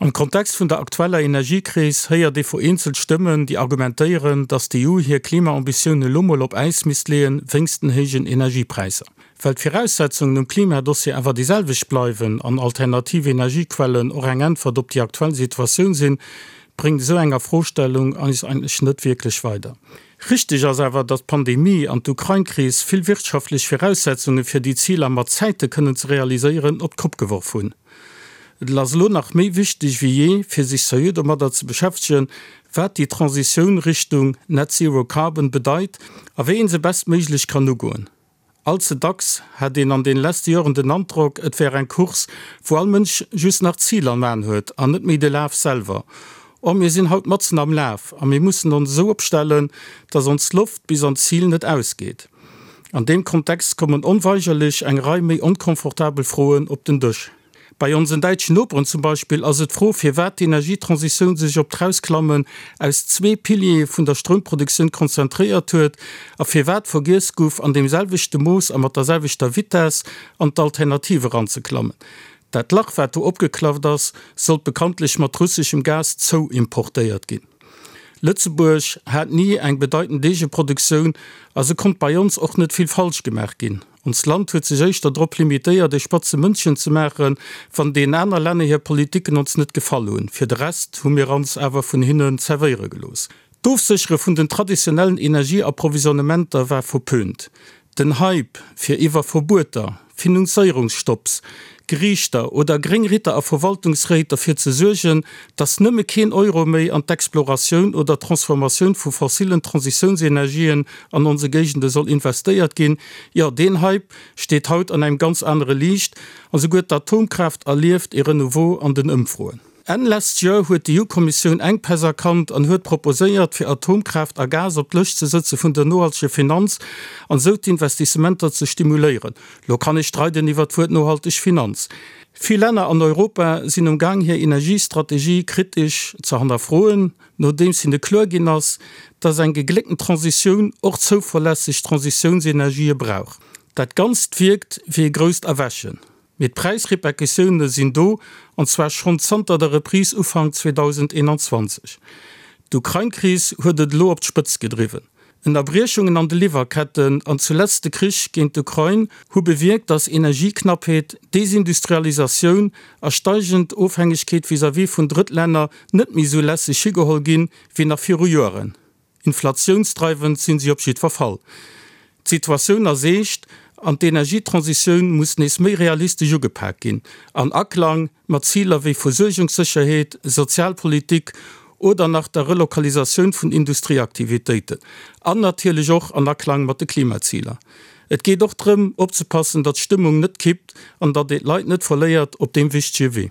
Am Kontext vun der aktueller Energiekris héiert ee vereenzelt Stëmmen, déi argumentéieren, datt d'EU hir Klimaambitioune lo mol op Äis misst leeën, wéinst den héijen Energiepräisser. Well d'Viraussetzungen um Klimadossier awer déi selwecht bleiwen an alternativ Energiequellen och eng Äntwert op déi aktuell Situatioun sinn, bréngt esou eng Afrostellung eis eigentlech net wierklech weider. Richteg ass awer, datt d'Pandemie an d'Ukrain-Kris vill wirtschaftlech Viraussetzunge fir déi Ziler mat Zäite kënnen ze realiséieren, op d'Kopp geworf hunn. Et ass elo nach méi wichteg wéi jee, fir sech seriö domadder ze beschäftegen, wat déi Transitioun Richtung Net Zero Carbon bedeit a wéi een se bestméiglech kann ugoen. All ze dacks hat een an den leschte Joren den Androck, et wär eng Course, wou all Mënsch just nach d'Zil am An huet an net méi de Laf selwer. Or, mir sinn haut matzen am Laf a mir mussen ons esou opstellen, dass ons Loft bis an d'Zil net ausgeet. An deem Kontext kommen onweigerlech eng Rei méi onkomfortabel Froen op den Dësch. Bei onsen däitschen Noperen zum Beispill ass et d'Fro, firwat d'Energietransitioun sech op d'Rausklammen aus zwee Piliere vun der Stroumproduktioun konzentréiert huet a firwat vergiess guff, an deem selwechte Mooss a mat der selwechter Vitess an d'Alternative eranzeklammen. Dat Lach, wat do opgeklafft ass, sollt bekanntlech mat russeschem Gas zouimportéiert ginn. Lëtzebuerg hat ni eng bedeitend Eegeproduktioun a sou konnt bei ons och net vill falsch gemaach ginn. Onst Land huet sech éischter drop limitéiert, e spatze Mëndchen ze maachen, wann deenen aner Länner hir Politiken ons net gefall hunn. Fir de Rest hu mir ons awer vun hinnen zerwéiere gelooss. D'Ofséchere vun den traditionellen Energieapprovisionnementer war verpönt. Den Hype, fir iwwer Verbueter, Finanzéierungsstopps, Geriichter oder gréng Ritter a Verwaltungsréit derfir ze suergen, datt nëmme keen Euro méi an d'Exploratioun oder d'Transformatioun vu fossilen Transitiounsenergien an onse Géigende soll investéiert ginn, jo, deen Hype steet haut an engem ganz anere Liicht a souguer d'Atomkraaft erlieft ee Renouveau an den Ëmfroen. Enn lescht Joer huet d'EU-Kommissioun Enkpäss erkannt an huet proposéiert, fir Atomkraaft a Gas op d'Lëscht ze sëtze vun der nohalteger Finanz an esou d'Investissementer ze stimuléieren. Lo kann ee streiden iwwer d'Wuert nohalteg Finanz. Vill Länner an Europa sinn um Gaang hir Energiestrategie kritesch ze hannerfroen, nodeems hinne kloer ginn ass, datt eng gegléckten Transitioun och zouverlässeg Transitiounsenergië brauch. Dat Ganzt wierkt wéi e grousst Erwächen. Mee d'Präisrepercussioune sinn do, an zwar schonn zanter der Reprise Ufank 2021. D'Ukrain-Kris huet et elo op d'Spëtzt gedriwwen. Ënnerbriechungen an de Liwwerketten an zuletzt de Krich géint d'Ukrain hu bewierkt, datt Energieknappheet, Desindustrialisatioun a steigend Ofhängegkeet vis-à-vis vun Drëttlänner net méi esou lässeg higeholl ginn, wéi nach viru Joren. Inflatiounsdreiwend sinn si op jiddwer Fall. D'Situatioun ass eescht an d'Energietransitioun muss nees méi realistesch ugepak ginn, an Aklang mat Ziler wéi Versuergungssécherheet, Sozialpolitik oder nach der Relokalisatioun vun Industrieaktivitéiten. An natierlech och an Aklang mat de Klimaziler. Et geet och drëm, opzepassen, datt d'Stëmmung net kippt an datt ee d'Leit net verléiert op deem wichtege Wee.